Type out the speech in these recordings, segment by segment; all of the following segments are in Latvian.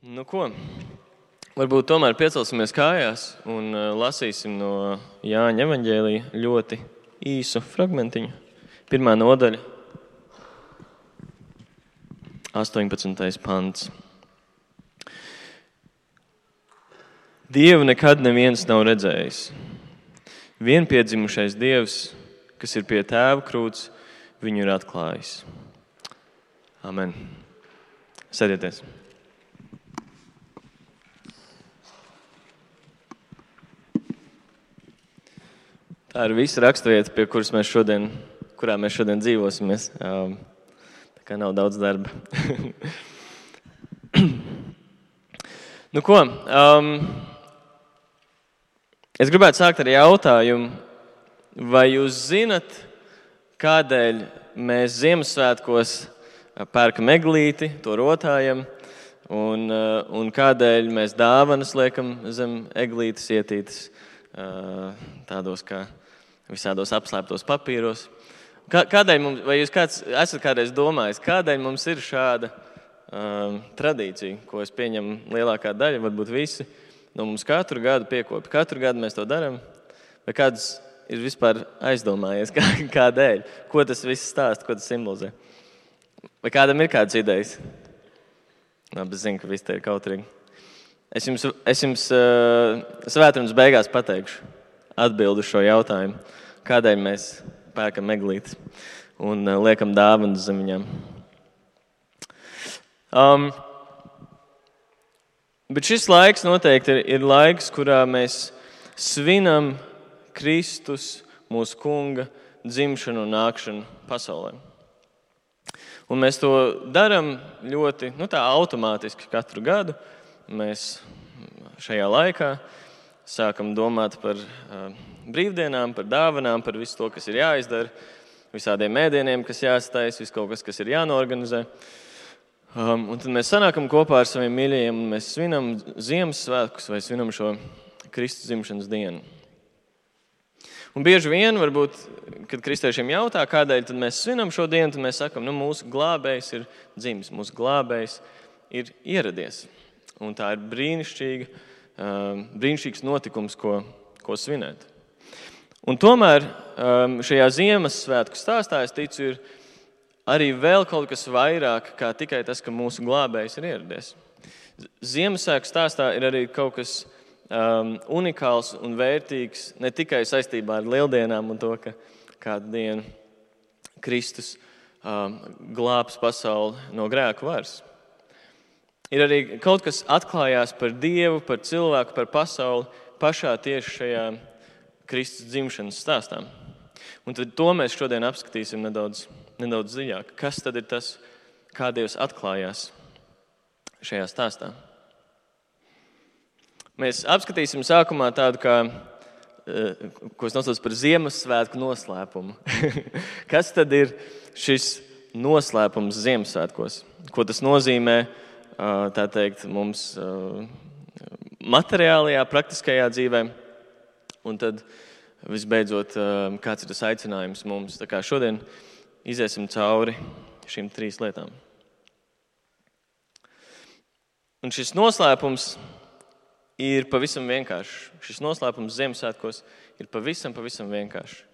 Nu ko, varbūt tomēr piecelsimies kājās un lasīsim no Jāņa evaņģēlija ļoti īsu fragmentiņu. 1. nodaļa, 18. pants. Dievu nekad neviens nav redzējis. Vienpiedzimušais Dievs, kas ir pie Tēva krūts, viņu ir atklājis. Amen. Sēdieties. Tā ir visa raksturvieta, kurā mēs šodien dzīvosimies. Tā kā nav daudz darba. Nu ko, es gribētu sākt ar jautājumu, vai jūs zinat, kādēļ mēs Ziemassvētkos pērkam eglīti, to rotājam, un kādēļ mēs dāvanas liekam zem eglītes ietītas tādos kā visādos apslēptos papīros. Kādēļ mums, vai jūs esat kādreiz domājis, kādēļ mums ir šāda tradīcija, ko es pieņemu lielākā daļa, varbūt visi, no mums katru gadu piekopja. Katru gadu mēs to darām, vai kāds ir vispār aizdomājies, kādēļ, ko tas viss stāsta, ko tas simbolizē. Vai kādam ir kādas idejas? Labi, es zinu, ka viss te ir kautrīgi. Es jums svētdienas beigās pateikšu atbildi uz šo jautājumu, kādēļ mēs pērkam eglītes un liekam dāvanas zem viņām. Bet šis laiks noteikti ir laiks, kurā mēs svinam Kristus, mūsu kunga, dzimšanu un nākšanu pasaulē. Un mēs to darām ļoti tā automātiski katru gadu. Mēs šajā laikā sākam domāt par brīvdienām, par dāvanām, par visu to, kas ir jāizdara, visādiem ēdieniem, kas jāstais, visu kaut kas ir jānorganizē. Un tad mēs sanākam kopā ar saviem mīļajiem un mēs svinam Ziemassvētkus vai svinam šo Kristus dzimšanas dienu. Un bieži vien, varbūt, kad kristiešiem jautā, kādēļ tad mēs svinam šo dienu, tad mēs sakam, mūsu glābējs ir dzimis, mūsu glābējs ir ieradies. Un tā ir brīnišķīgs notikums, ko svinēt. Un tomēr šajā Ziemassvētku stāstā, es ticu, ir arī vēl kaut kas vairāk, kā tikai tas, ka mūsu glābējs ir ieradies. Ziemassvētku stāstā ir arī kaut kas unikāls un vērtīgs, ne tikai saistībā ar lieldienām un to, ka kādu dienu Kristus glābs pasauli no grēku varas. Ir arī kaut kas atklājās par Dievu, par cilvēku, par pasauli pašā tieši šajā Kristus dzimšanas stāstā. Un tad to mēs šodien apskatīsim nedaudz dziļāk. Kas tad ir tas, kā Dievs atklājās šajā stāstā? Mēs apskatīsim sākumā tādu, ko es nosaucu par Ziemassvētku noslēpumu. Kas tad ir šis noslēpums Ziemassvētkos? Ko tas nozīmē? Tā teikt, mums materiālajā, praktiskajā dzīvē. Un tad, visbeidzot, kāds ir tas aicinājums mums. Tā kā šodien iziesim cauri šīm 3 lietām. Un šis noslēpums ir pavisam vienkāršs. Šis noslēpums Ziemassvētkos ir pavisam vienkāršs.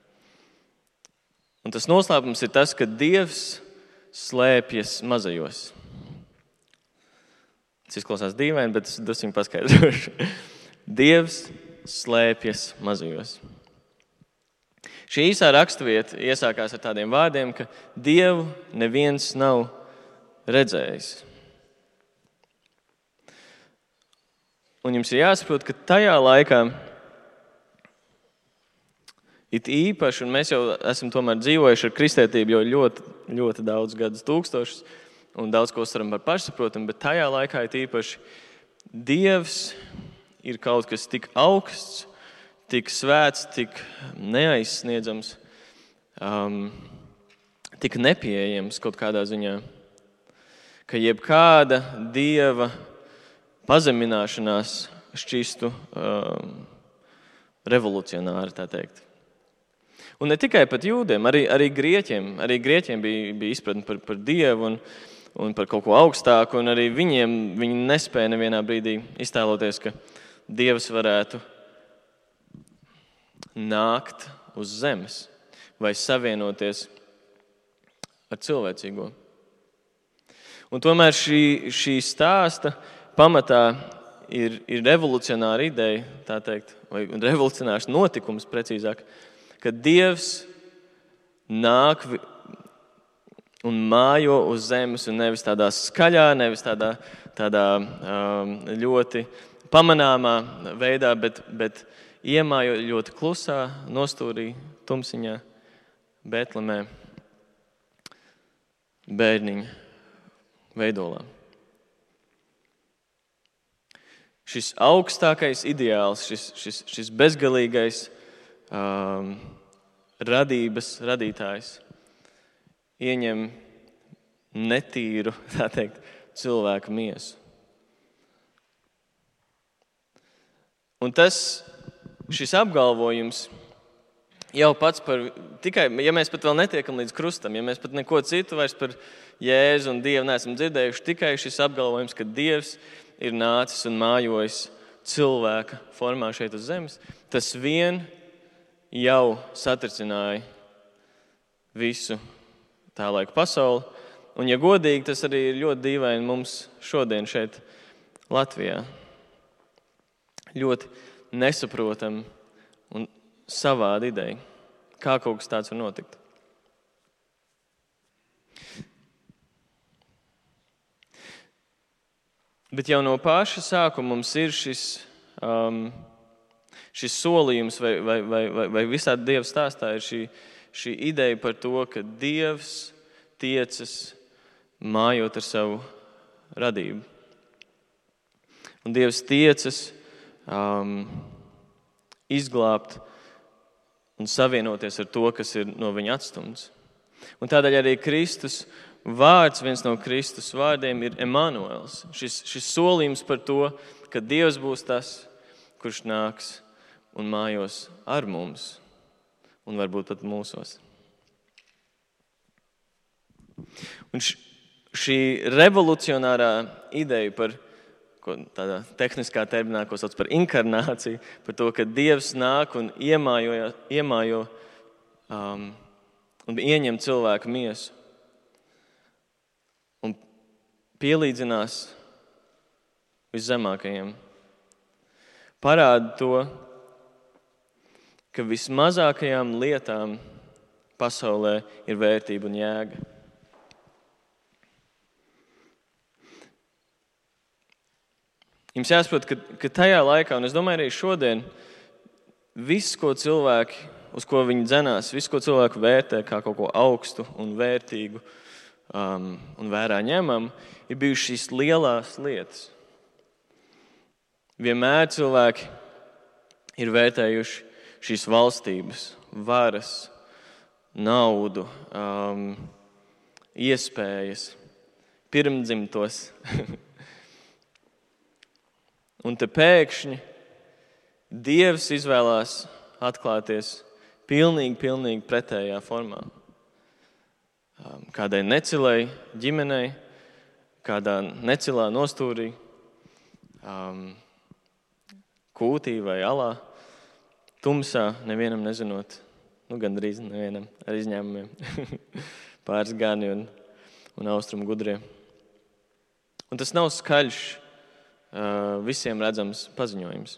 Un tas noslēpums ir tas, ka Dievs slēpjas mazajos. Tas izklausās dīvaini, bet es drusku paskaidrošu. Dievs slēpjas mazajos. Šī īsā raksturvieta iesākās ar tādiem vārdiem, ka Dievu neviens nav redzējis. Un jums ir jāsaprot, ka tajā laikā it īpaši, un mēs jau esam tomēr dzīvojuši ar kristētību jau ļoti daudz gadus tūkstošus, un daudz ko uztveram par pašsaprotamu, bet tajā laikā it īpaši Dievs ir kaut kas tik augsts, tik svēts, tik neaizsniedzams, tik nepieejams kaut kādā ziņā, ka jebkāda Dieva pazemināšanās šķistu revolucionāri, tā teikt. Un ne tikai pat jūdiem, arī grieķiem. Arī grieķiem bija izpratne par Dievu. un par kaut ko augstāku, un arī viņi nespēja nevienā brīdī iztēloties, ka Dievs varētu nākt uz zemes vai savienoties ar cilvēcīgo. Un tomēr šī stāsta pamatā ir revolucionāra ideja, tā teikt, vai revolucionārs notikums precīzāk, ka Dievs nāk un mājo uz zemes, un nevis tādā skaļā, nevis tādā ļoti pamanāmā veidā, bet iemājo ļoti klusā, nostūrī, tumsiņā, Betlemē, bērniņa veidolā. Šis augstākais ideāls, šis bezgalīgais radītājs ieņem netīru, tā teikt, cilvēka miesu. Un šis apgalvojums jau pats tikai, ja mēs pat vēl netiekam līdz krustam, ja mēs pat neko citu vairs par Jēzu un Dievu neesam dzirdējuši, tikai šis apgalvojums, ka Dievs ir nācis un mājojis cilvēka formā šeit uz zemes, tas vien jau satricināja visu tā laika pasauli. Un, ja godīgi, tas arī ir ļoti dīvaini mums šodien šeit Latvijā. Ļoti nesaprotam un savāda ideja, kā kaut kas tāds var notikt. Bet jau no paša sākuma mums ir šis solījums vai visā Dieva stāstā ir šī ideja par to, ka Dievs tiecas mājot ar savu radību. Un Dievs tiecas izglābt un savienoties ar to, kas ir no viņa atstumts. Un tādēļ arī Kristus vārds, viens no Kristus vārdiem ir Emanuels. Šis solījums par to, ka Dievs būs tas, kurš nāks un mājos ar mums un varbūt pat mūsos. Un šī revolucionārā ideja par tādā tehniskā terminā, ko sauc par inkarnāciju, par to, ka Dievs nāk un iemājo un ieņem cilvēka miesu un pielīdzinās viszemākajiem, parāda to, ka vismazākajām lietām pasaulē ir vērtība un jēga. Jums jāsaprot, ka tajā laikā, un es domāju arī šodien, viss, ko cilvēki, uz ko viņi dzenās, viss, ko cilvēki vērtē kā kaut ko augstu un vērtīgu un vērā ņemam, ir bijušas šīs lielās lietas. Vienmēr cilvēki ir vērtējuši šīs valstības, varas, naudu, iespējas, pirmdzimtos. Un te pēkšņi Dievs izvēlās atklāties pilnīgi pretējā formā. Kādai necilai ģimenei, kādā necilā nostūrī, kūtī vai alā, tumsā, nevienam nezinot, gandrīz nevienam, ar izņēmumiem, pāris gani un austrumu gudrie. Un tas nav skaļš, visiem redzams paziņojums.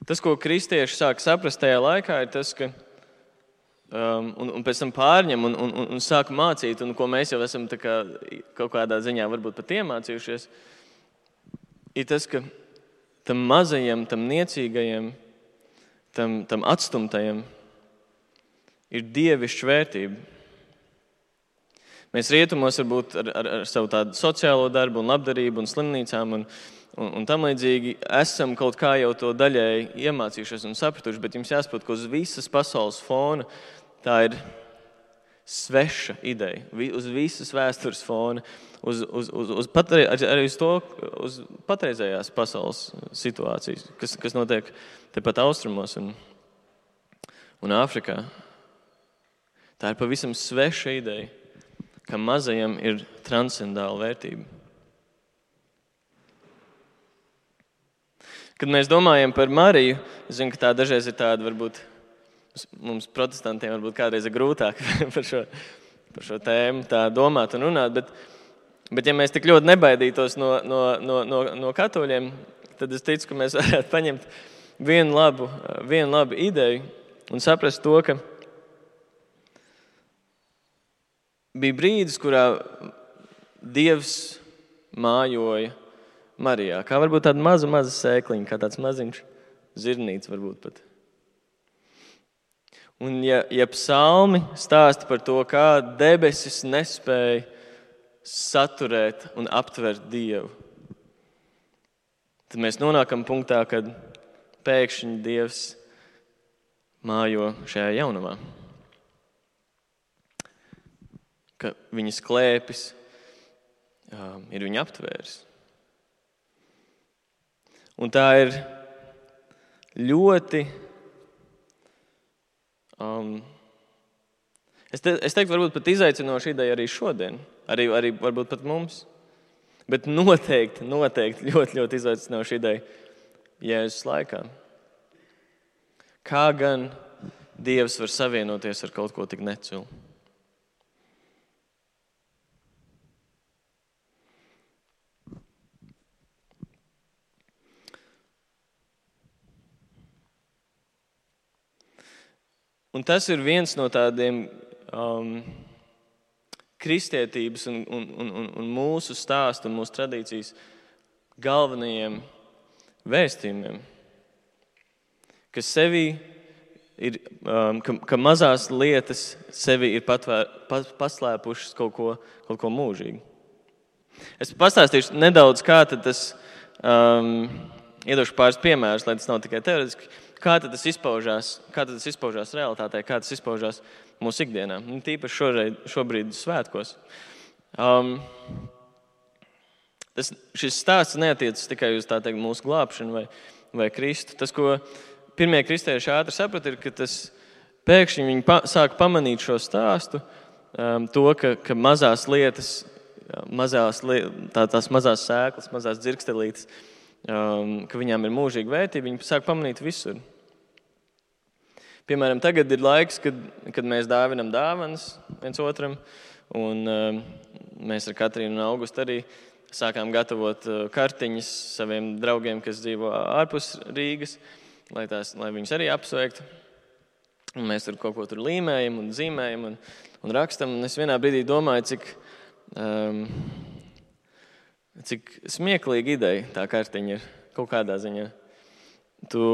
Tas, ko kristieši sāk saprast tajā laikā, ir tas, ka un pēc tam pārņem un sāk mācīt, un ko mēs jau esam kaut kādā ziņā varbūt pat iemācījušies, ir tas, ka tam mazajam, tam niecīgajam, tam atstumtajam ir dievišķa vērtība. Mēs rietumos varbūt ar savu tādu sociālo darbu un labdarību un slimnīcām un tam līdzīgi esam kaut kā jau to daļēji iemācījušies un sapratuši, bet jums jāsaprot, ka uz visas pasaules fona tā ir sveša ideja, uz visas vēstures fona, arī uz patreizējās pasaules situācijas, kas notiek tepat austrumos un Āfrikā. Tā ir pavisam sveša ideja, ka mazajam ir transcendāla vērtība. Kad mēs domājam par Mariju, es zinu, ka tā dažreiz ir tāda, varbūt mums protestantiem varbūt kādreiz ir grūtāk par šo tēmu tā domāt un runāt, bet ja mēs tik ļoti nebaidītos no katoļiem, tad es ticu, ka mēs varētu paņemt vienu labu ideju un saprast to, ka bija brīdis, kurā Dievs mājoja Marijā, kā varbūt tāda maza sēkliņa, kā tāds maziņš zirnīts varbūt pat. Un ja psalmi stāsta par to, kā debesis nespēja saturēt un aptvert Dievu, tad mēs nonākam punktā, kad pēkšņi Dievs mājo šajā jaunumā. Ka viņas klēpis ir viņa aptvērs. Un tā ir ļoti, es teiktu, varbūt pat izaicinoša ideja arī šodien, arī varbūt pat mums, bet noteikti ļoti izaicinoša ideja Jēzus laikā. Kā gan Dievs var savienoties ar kaut ko tik necilu? Un tas ir viens no tādiem kristietības un mūsu stāstu un mūsu tradīcijas galvenajiem vēstījumiem, ka sevī ir, ka mazās lietas sevī ir paslēpušas kaut ko mūžīgu. Es pastāstīšu nedaudz, kā tad tas, iedošu pāris piemērus, lai tas nav tikai teoretiski, kā tad tas izpaužās realitātē, kā tas izpaužās mūsu ikdienā, un tīpaši šobrīd svētkos. Šis stāsts neatiecas tikai uz tā teikt mūsu glābšanu vai Kristu. Tas, ko pirmie kristieši ātri saprata, ir, ka tas pēkšņi viņi sāk pamanīt šo stāstu, to, ka mazās lietas, tās mazās sēklas, mazās dzirkstelītes, ka viņām ir mūžīga vērtība, viņi sāk pamanīt visur. Piemēram, tagad ir laiks, kad mēs dāvinam dāvanas viens otram, un mēs ar Katrīnu un Augustu arī sākām gatavot kartiņas saviem draugiem, kas dzīvo ārpus Rīgas, lai viņus arī apsveiktu. Un mēs tur kaut ko tur līmējam un zīmējam un rakstam, un es vienā brīdī domāju, cik smieklīga ideja tā kartiņa ir kaut kādā ziņā. Tu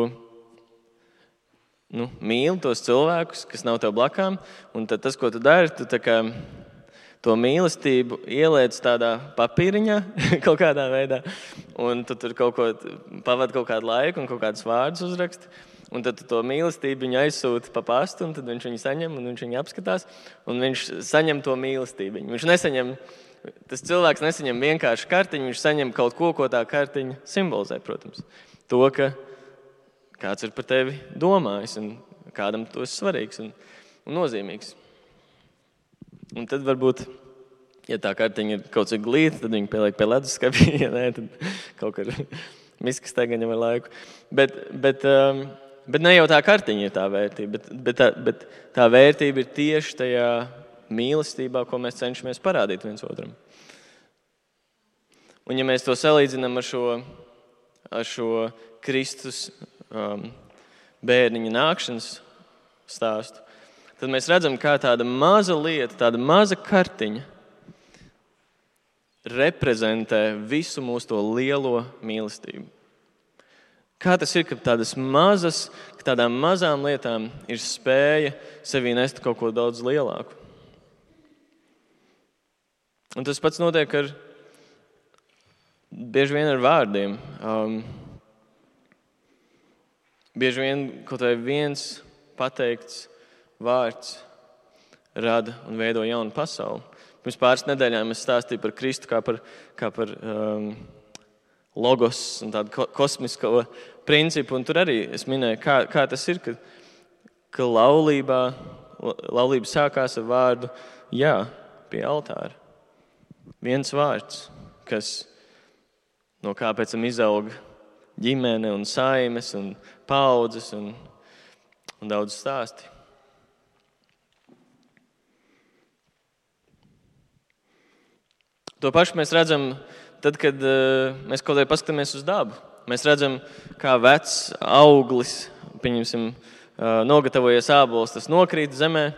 mīli tos cilvēkus, kas nav tev blakām, un tad tas, ko tu dari, tu tā kā to mīlestību ieliec tādā papīriņā kaut kādā veidā, un tu tur pavadi kaut kādu laiku un kaut kādus vārdus uzraksti, un tad tu to mīlestību viņu aizsūti pa pastu, un tad viņš viņu saņem, un viņš viņu apskatās, un viņš saņem to mīlestību. Tas cilvēks nesaņem vienkārši kartiņu, viņš saņem kaut ko tā kartiņa simbolizē, protams. To, ka kāds ir par tevi domājis un kādam tu esi svarīgs un nozīmīgs. Un tad varbūt, ja tā kartiņa ir kaut cik glīta, tad viņi pieliek pie leduskapī, ja nē, tad kaut kur miskas tagaņam ar laiku. Bet ne jau tā kartiņa ir tā vērtība, bet tā vērtība ir tieši tajā mīlestībā, ko mēs cenšamies parādīt viens otram. Un ja mēs to salīdzinām ar šo Kristus bērniņa nākšanas stāstu, tad mēs redzam, kā tāda maza lieta, tāda maza kartiņa reprezentē visu mūsu to lielo mīlestību. Kā tas ir, ka tādām mazām lietām ir spēja sevī nest kaut ko daudz lielāku. Un tas pats notiek bieži vien ar vārdiem. Bieži vien kaut vai viens pateikts vārds rada un veido jaunu pasauli. Pirms pāris nedēļām es stāstīju par Kristu kā par logos un tādu kosmisko principu, un tur arī es minēju, kā tas ir, ka laulība sākās ar vārdu jā pie altāra. Viens vārds, no kā pēc tam izauga ģimene un saimes un paudzes un daudz stāsti. To pašu mēs redzam tad, kad mēs kaut kā paskatāmies uz dabu. Mēs redzam, kā vecs auglis, pieņemsim, nogatavojies ābols, tas nokrīt zemē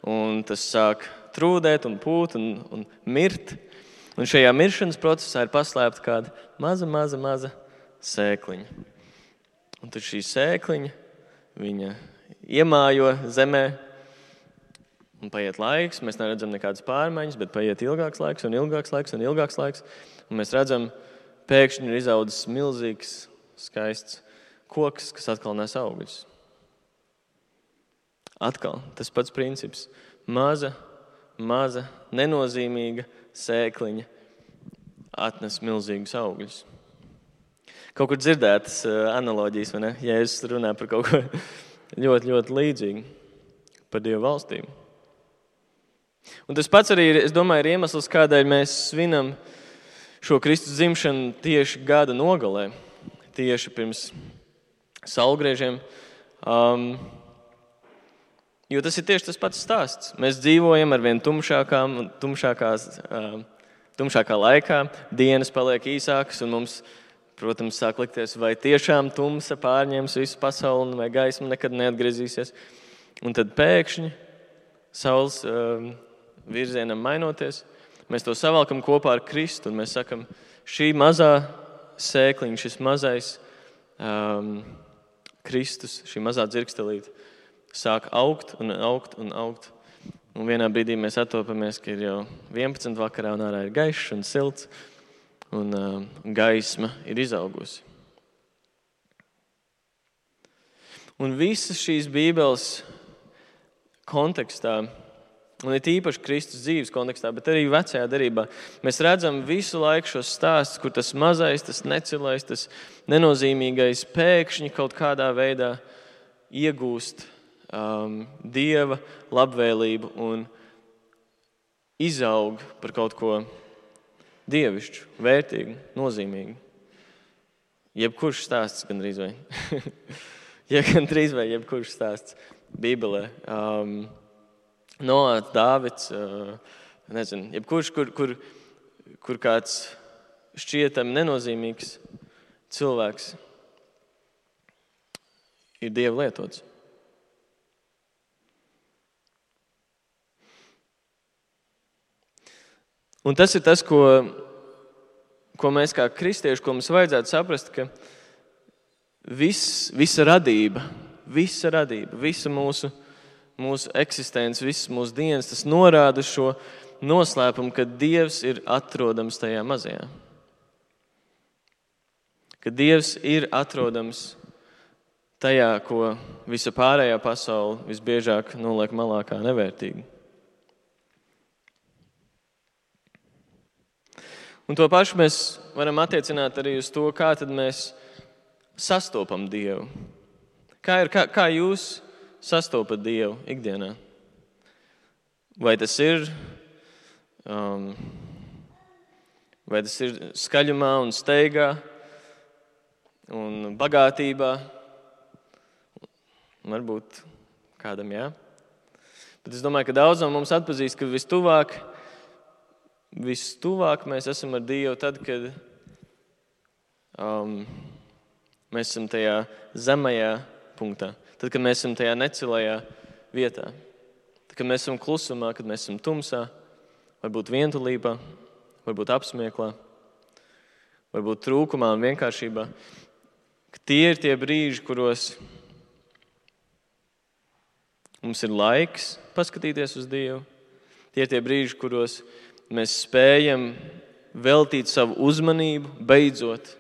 un tas sāk trūdēt un pūt un mirt. Un šajā miršanas procesā ir paslēpta kāda maza sēkliņa. Un tad šī sēkliņa, viņa iemājo zemē, un paiet laiks, mēs neredzam nekādas pārmaiņas, bet paiet ilgāks laiks. Un mēs redzam, pēkšņi ir izaudzis milzīgs, skaists koks, kas atkal nes augļus. Atkal tas pats princips. Maza, nenozīmīga sēkliņa atnes milzīgus augļus. Kaut kur dzirdētas analoģijas, vai ne? Jēzus runā par kaut ko ļoti, ļoti līdzīgu par Dievu valstību. Un tas pats arī, es domāju, ir iemesls, kādēļ mēs svinam šo Kristus dzimšanu tieši gada nogalē, tieši pirms saulgriežiem. Jo tas ir tieši tas pats stāsts. Mēs dzīvojam ar vien tumšākā laikā, dienas paliek īsākas un mums, protams, sāk likties, vai tiešām tumsa pārņems visu pasauli vai gaisma nekad neatgriezīsies. Un tad pēkšņi saules virzienam mainoties, mēs to savalkam kopā ar Kristu un mēs sakam, šī mazā sēkliņa, šis mazais Kristus, šī mazā dzirkstelīte sāk augt. Un vienā brīdī mēs attopamies, ka ir jau 11 vakarā un ārā ir gaišs un silts un gaisma ir izaugusi. Un visas šīs Bībeles kontekstā, un ir īpaši Kristus dzīves kontekstā, bet arī vecajā derībā, mēs redzam visu laiku šos stāstus, kur tas mazais, tas necilais, tas nenozīmīgais pēkšņi kaut kādā veidā iegūst Dieva labvēlību un izaug par kaut ko dievišķu, vērtīgu, nozīmīgu. Jebkurš stāsts gandrīz vai. Gandrīz vai jebkurš stāsts Bībelē. Noāds, Dāvids, nezinu, jebkurš, kur kāds šķietami nenozīmīgs cilvēks ir Dieva lietots. Un tas ir tas, ko mēs kā kristieši, ko mums vajadzētu saprast, ka visa radība, visa mūsu eksistence, visas mūsu dienas, tas norāda šo noslēpumu, ka Dievs ir atrodams tajā mazajā. Ka Dievs ir atrodams tajā, ko visa pārējā pasaule visbiežāk noliek malā kā nevērtīgi. Un to pašu mēs varam attiecināt arī uz to, kā tad mēs sastopam Dievu. Kā jūs sastopat Dievu ikdienā? Vai tas ir skaļumā un steigā un bagātībā? Varbūt kādam jā. Bet es domāju, ka daudz no mums atpazīst, ka vistuvāk mēs esam ar Dievu tad, kad mēs esam tajā zemajā punktā. Tad, kad mēs esam tajā necilajā vietā. Tad, kad mēs esam klusumā, kad mēs esam tumsā, varbūt vientulībā, varbūt apsmieklā, varbūt trūkumā un vienkāršībā. Tie ir tie brīži, kuros mums ir laiks paskatīties uz Dievu. Tie ir tie brīži, kuros mēs spējam veltīt savu uzmanību, beidzot,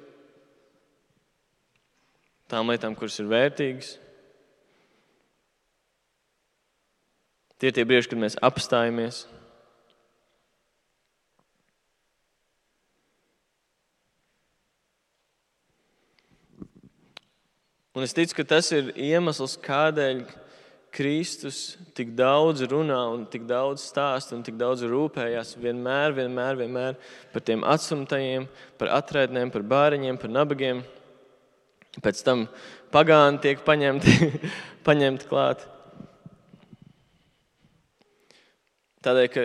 tām lietām, kuras ir vērtīgas. Tie ir tie brīži, kad mēs apstājamies. Un es ticu, ka tas ir iemesls, kādēļ Kristus tik daudz runā un tik daudz stāsta un tik daudz rūpējās vienmēr par tiem atstumtajiem, par atraitnēm, par bāriņiem, par nabagiem. Pēc tam pagāni tiek paņemti klāt. Tādēļ, ka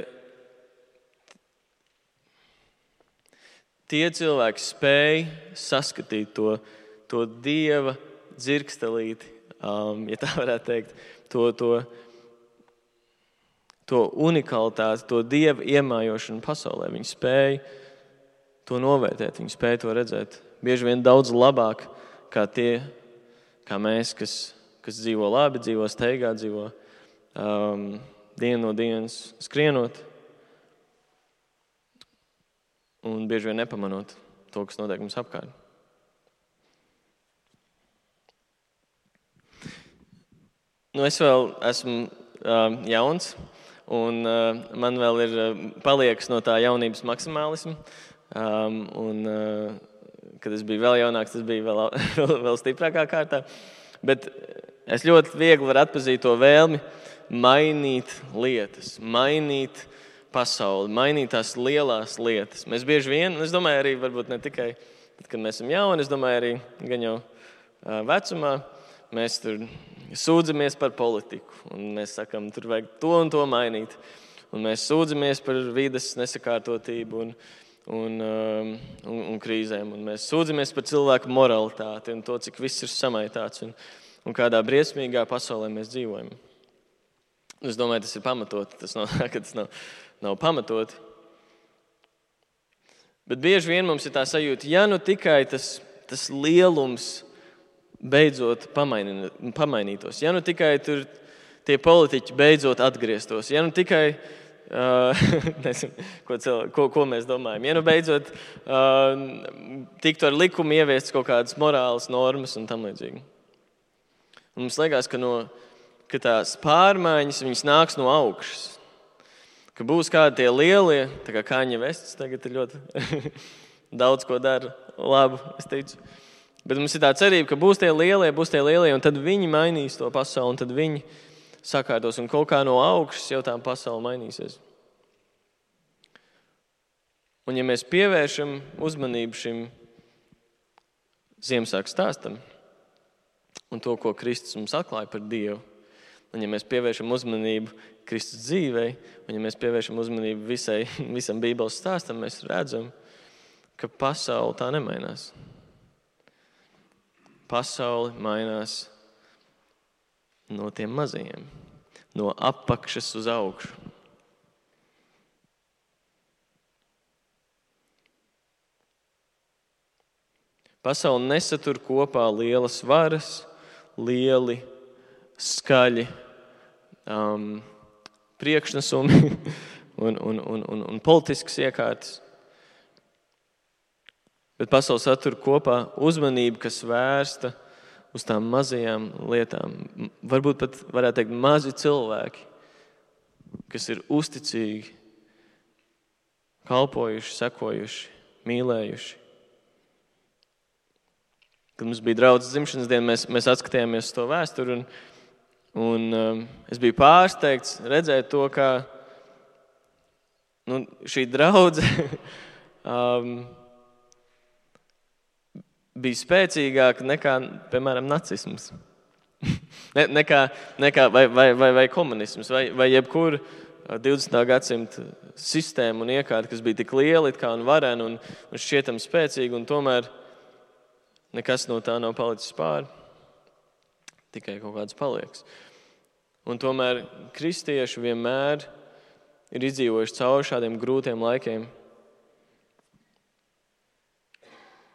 tie cilvēki spēj saskatīt to Dieva dzirkstelīti, ja tā varētu teikt, to unikalitāti, to Dieva iemājošanu pasaulē. Viņi spēja to novērtēt, viņi spēja to redzēt. Bieži vien daudz labāk kā tie, kā mēs, kas dzīvo labi, dzīvo steigā, dzīvo dienu no dienas skrienot un bieži vien nepamanot to, kas notiek mums apkārt. Es vēl esmu jauns, un man vēl ir paliekas no tā jaunības maksimālisma. Kad es biju vēl jaunāks, tas bija vēl stiprākā kārtā. Bet es ļoti viegli varu atpazīt to vēlmi mainīt lietas, mainīt pasauli, mainīt tās lielās lietas. Mēs bieži vien, es domāju arī, varbūt ne tikai tad, kad mēs esam jauni, es domāju arī gan jau vecumā, mēs tur sūdzamies par politiku, un mēs sakam, tur vajag to un to mainīt. Un mēs sūdzamies par vides nesakārtotību un krīzēm, un mēs sūdzamies par cilvēku moralitāti un to, cik viss ir samaitāts un kādā briesmīgā pasaulē mēs dzīvojam. Es domāju, tas ir pamatoti, tas nav pamatoti. Bet bieži vien mums ir tā sajūta, ja nu tikai tas lielums beidzot pamainītos, ja nu tikai tur tie politiķi beidzot atgrieztos, ja nu tikai, nezinu, ko mēs domājam, ja nu beidzot tiktu ar likumu ieviestas kaut kādas morālas normas un tam līdzīgi. Un mums liekas, ka tās pārmaiņas, viņas nāks no augšas. Ka būs kādi tie lielie, tā kā Kanye Wests tagad ir ļoti daudz ko dara labu, es teicu. Bet mums ir tā cerība, ka būs tie lielie, un tad viņi mainīs to pasauli, un tad viņi sakārtos, un kaut kā no augšas jau tā pasaule mainīsies. Un ja mēs pievēršam uzmanību šim Ziemassvētku stāstam un to, ko Kristus mums atklāja par Dievu, un ja mēs pievēršam uzmanību Kristus dzīvei, un ja mēs pievēršam uzmanību visam Bībeles stāstam, mēs redzam, ka pasaule tā nemainās. Pasaule mainās no tiem mazajiem, no apakšas uz augšu. Pasaule nesatur kopā lielas varas, lieli, skaļi priekšnesumi un politiskas iekārtas. Bet pasaule satur kopā uzmanību, kas vērsta uz tām mazajām lietām. Varbūt pat varētu teikt mazi cilvēki, kas ir uzticīgi, kalpojuši, sekojuši, mīlējuši. Kad mums bija draudzes dzimšanas diena, mēs atskatījāmies uz to vēsturi un es biju pārsteigts redzēt to, kā šī draudze bija spēcīgāka nekā, piemēram, nacisms. vai komunisms, vai jebkura 20. gadsimta sistēma un iekārta, kas bija tik liela un varena un šķietam spēcīga, un tomēr nekas no tā nav palicis pāri. Tikai kaut kāds paliekas. Un tomēr kristieši vienmēr ir izdzīvojuši cauri šādiem grūtiem laikiem.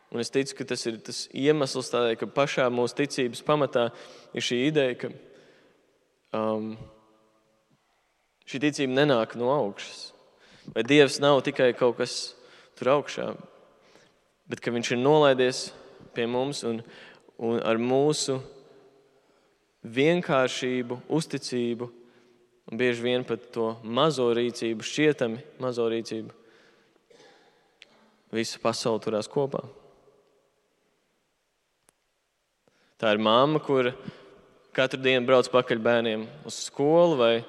Un es ticu, ka tas ir tas iemesls tādēļ, ka pašā mūsu ticības pamatā ir šī ideja, ka šī ticība nenāk no augšas. Vai Dievs nav tikai kaut kas tur augšā, bet ka viņš ir nolaidies pie mums un ar mūsu vienkāršību, uzticību un bieži vien pat to mazo rīcību, šķietami mazo rīcību, visa pasaule turās kopā. Tā ir mamma, kura katru dienu brauc pakaļ bērniem uz skolu, vai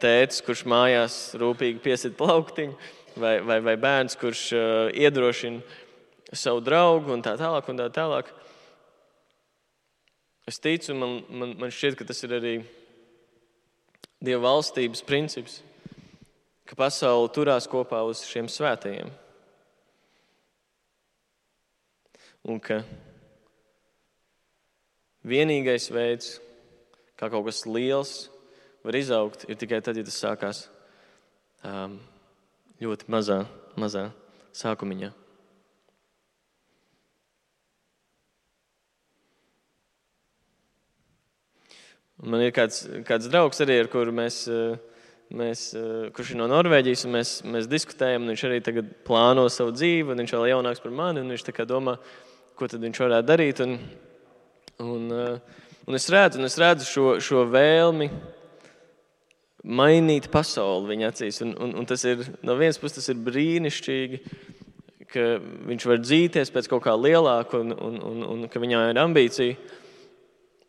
tētis, kurš mājās rūpīgi piesit plauktiņu, vai bērns, kurš iedrošina savu draugu un tā tālāk un tā tālāk. Es ticu, man šķiet, ka tas ir arī Dieva valstības princips, ka pasaule turās kopā uz šiem svētajiem. Un ka vienīgais veids, kā kaut kas liels var izaugt, ir tikai tad, ja tas sākās ļoti mazā sākumiņā. Man ir kāds draugs arī, ar kuru kurš ir no Norvēģijas, un mēs diskutējam, un viņš arī tagad plāno savu dzīvi, un viņš vēl jaunāks par mani, un viņš tā kā domā, ko tad viņš varētu darīt. Un es redzu šo vēlmi mainīt pasauli viņa acīs. Un tas ir, no vienas puses tas ir brīnišķīgi, ka viņš var dzīties pēc kaut kā lielāka un ka viņā ir ambīcija.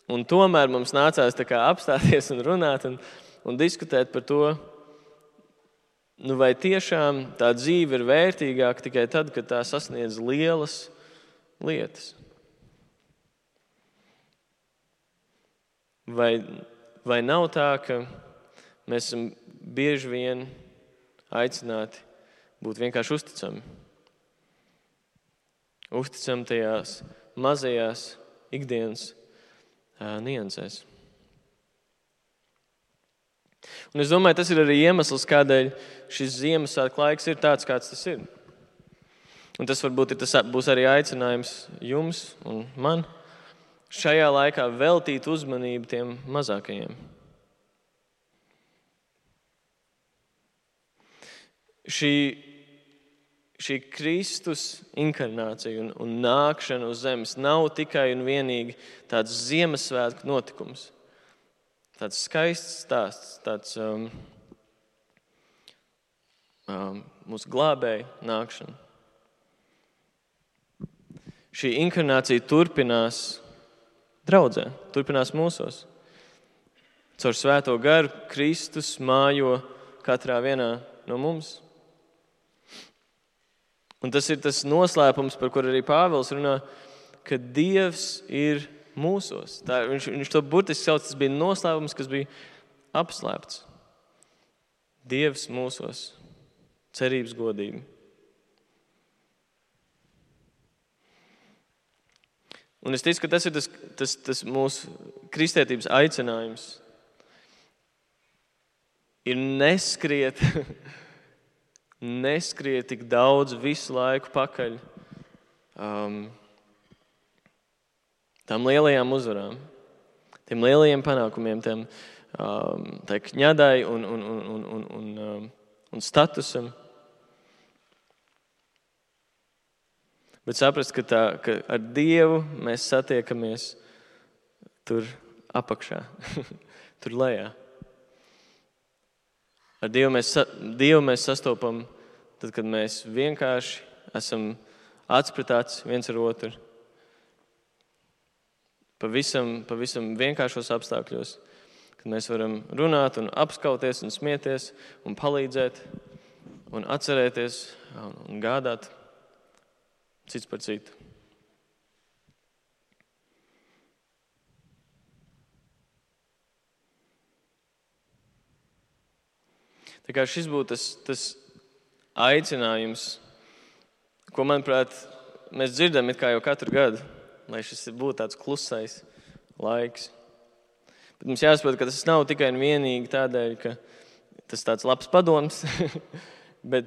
Un tomēr mums nācās tā kā apstāties un runāt un diskutēt par to, vai tiešām tā dzīve ir vērtīgāka tikai tad, kad tā sasniedz lielas lietas. Vai nav tā, ka mēs esam bieži vien aicināti būt vienkārši uzticami? Uzticami tajās mazajās ikdienas niansēs. Un es domāju, tas ir arī iemesls, kādēļ šis Ziemassvētku laiks ir tāds, kāds tas ir. Un tas varbūt būs arī aicinājums jums un man šajā laikā veltīt uzmanību tiem mazākajiem. Šī Kristus inkarnācija un nākšana uz zemes nav tikai un vienīgi tāds Ziemassvētku notikums. Tāds skaists stāsts, tāds mūsu glābēja nākšana. Šī inkarnācija turpinās draudzē, turpinās mūsos. Caur Svēto garu Kristus mājo katrā vienā no mums. Un tas ir tas noslēpums, par kur arī Pāvils runā, ka Dievs ir mūsos. Viņš to burtiski sauc, tas bija noslēpums, kas bija apslēpts. Dievs mūsos, cerības godība. Un es ticu, ka tas ir tas mūsu kristietības aicinājums. Ir neskriet tik daudz visu laiku pakaļ tām lielajām uzvarām, tiem lielajiem panākumiem, tai kņadai un statusam. Bet saprast, ka ar Dievu mēs satiekamies tur apakšā, tur lejā. Ar Dievu mēs sastopam tad, kad mēs vienkārši esam atspratāts viens ar otru. Pavisam vienkāršos apstākļos, kad mēs varam runāt un apskauties un smieties un palīdzēt un atcerēties un gādāt cits par citu. Tā kā šis būtu tas aicinājums, ko, manuprāt, mēs dzirdam it kā jau katru gadu, lai šis būtu tāds klusais laiks. Bet mums jāsaprot, ka tas nav tikai un vienīgi tādēļ, ka tas tāds labs padoms, bet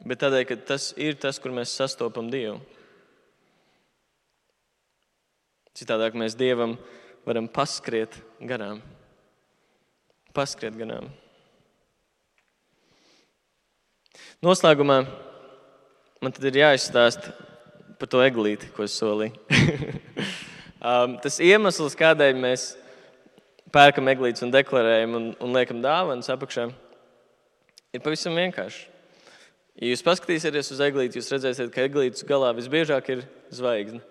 tādēļ, ka tas ir tas, kur mēs sastopam Dievu. Citādāk mēs Dievam varam paskriet garām. Noslēgumā man tad ir jāizstāst par to eglīti, ko es solīju. Tas iemesls, kādēļ mēs pērkam eglītes un deklarējam un liekam dāvanas apakšā, ir pavisam vienkārši. Ja jūs paskatīsieties uz eglīti, jūs redzēsiet, ka eglītes galā visbiežāk ir zvaigzne.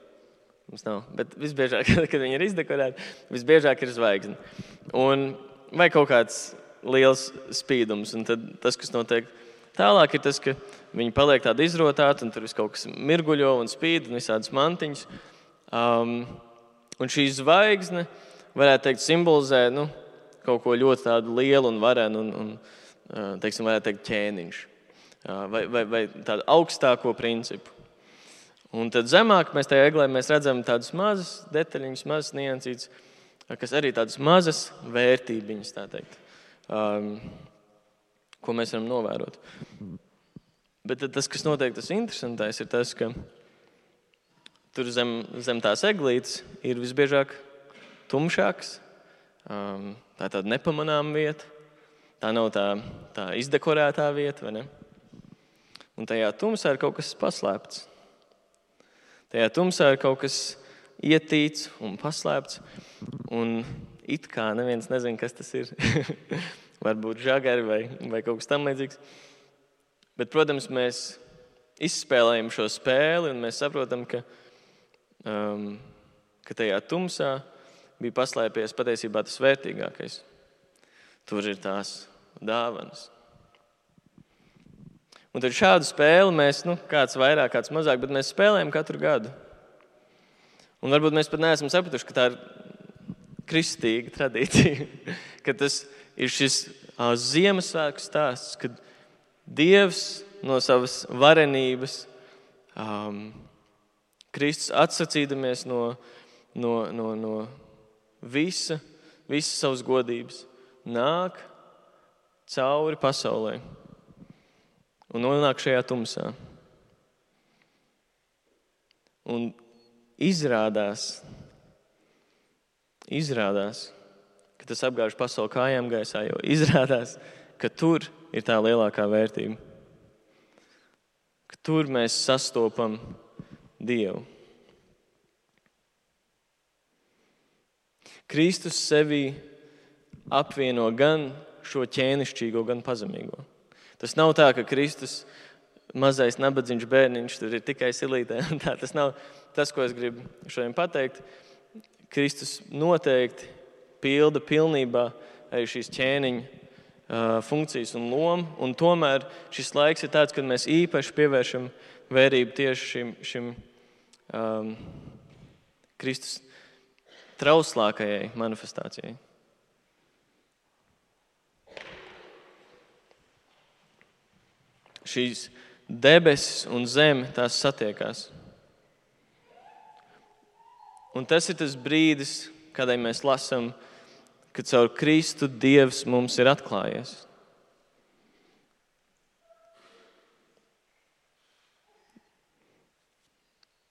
Mums nav. Bet visbiežāk, kad viņi ir izdekorēti, visbiežāk ir zvaigzne. Vai kaut kāds liels spīdums. Un tad tas, kas notiek tālāk, ir tas, ka viņi paliek tādi izrotāti, un tur viss kaut kas mirguļo un spīd, un visādas mantiņas. Un šī zvaigzne, varētu teikt, simbolizē kaut ko ļoti tādu lielu un varenu, un teiksim, varētu teikt, ķēniņš. Vai tādu augstāko principu. Un tad zemāk mēs tajā eglē redzam tādas mazas detaļiņas, mazas niansītes, kas arī tādas mazas vērtībiņas, tā teikt, ko mēs varam novērot. Bet tas, kas notiek, tas interesantais, ir tas, ka tur zem tās eglītes ir visbiežāk tumšāks. Tā ir tāda nepamanāma vieta. Tā nav tā izdekorētā vieta, vai ne? Un tajā tumsā ir kaut kas paslēpts. Tajā tumsā ir kaut kas ietīts un paslēpts. Un it kā neviens nezina, kas tas ir. Varbūt žagari vai kaut kas tam līdzīgs. Bet, protams, mēs izspēlējam šo spēli un mēs saprotam, ka tajā tumsā bija paslēpies patiesībā tas vērtīgākais. Tur ir tās dāvanas. Un tad šādu spēli mēs, kāds vairāk, kāds mazāk, bet mēs spēlējam katru gadu. Un varbūt mēs pat neesam sapratuši, ka tā ir kristīga tradīcija, ka tas ir šis Ziemassvētku stāsts, kad Dievs no savas varenības, Kristus atsacīdamies no visas savas godības, nāk cauri pasaulē un nonāk šajā tumsā. Un izrādās, ka tas apgāž pasauli kājām gaisā, jo izrādās, ka tur ir tā lielākā vērtība. Ka tur mēs sastopam Dievu. Kristus sevī apvieno gan šo ķēnišķīgo, gan pazemīgo. Tas nav tā, ka Kristus mazais nabadzīgs bērniņš tur ir tikai silītē. Tas nav tas, ko es gribu šodien pateikt. Kristus noteikti pilda pilnībā arī šīs ķēniņa funkcijas un lomu. Un tomēr šis laiks ir tāds, kad mēs īpaši pievēršam vērību tieši šim Kristus trauslākajai manifestācijai. Šīs debesis un zeme tās satiekās. Un tas ir tas brīdis, kādai mēs lasām, kad caur Kristu Dievs mums ir atklājies.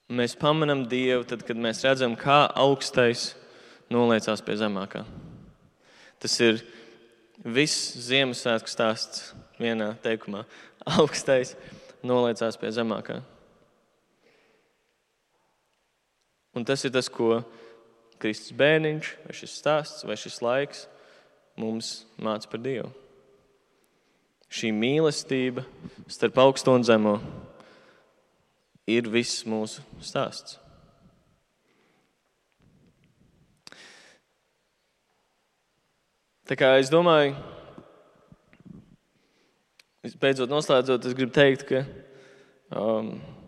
Mēs pamanām Dievu tad, kad mēs redzam, kā augstais noliecās pie zemākā. Tas ir viss Ziemassvētku stāsts vienā teikumā. Augstais noliecās pie zemākā. Un tas ir tas, ko Kristus bērniņš, vai šis stāsts, vai šis laiks mums māca par Dievu. Šī mīlestība starp augsto un zemo ir viss mūsu stāsts. Tā kā es domāju, beidzot noslēdzot, es gribu teikt, ka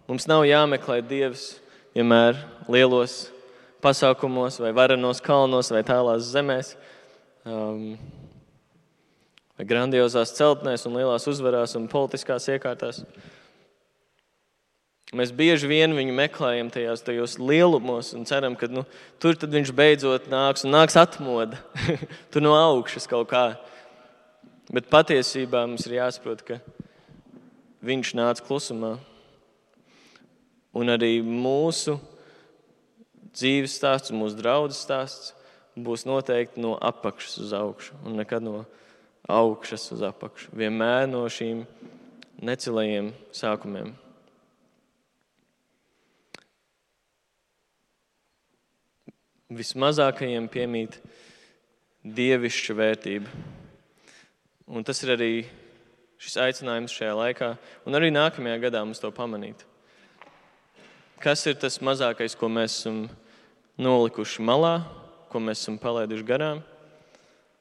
mums nav jāmeklē Dievs vienmēr lielos pasākumos vai varenos kalnos vai tālās zemēs vai grandiozās celtnēs un lielās uzvarās un politiskās iekārtās. Mēs bieži vien viņu meklējam tajos lielumos un ceram, ka tur tad viņš beidzot nāks atmoda. Tur no augšas kaut kā. Bet patiesībā mums ir jāsaprot, ka viņš nāca klusumā. Un arī mūsu dzīves stāsts, mūsu draudzes stāsts būs noteikti no apakšas uz augšu un nekad no augšas uz apakšu. Vienmēr no šīm necilajiem sākumiem. Vismazākajiem piemīt dievišķa vērtība. Un tas ir arī šis aicinājums šajā laikā un arī nākamajā gadā mums to pamanīt. kas ir tas mazākais, ko mēs esam nolikuši malā, ko mēs esam palaiduši garām,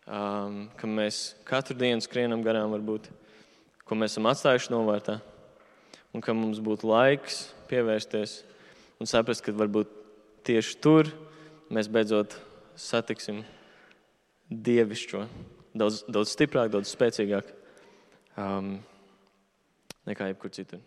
ka mēs katru dienu skrienam garām varbūt, ko mēs esam atstājuši novārtā, un ka mums būtu laiks pievērsties un saprast, ka varbūt tieši tur mēs beidzot satiksim dievišķo, daudz stiprāk, daudz spēcīgāk nekā jebkur citur.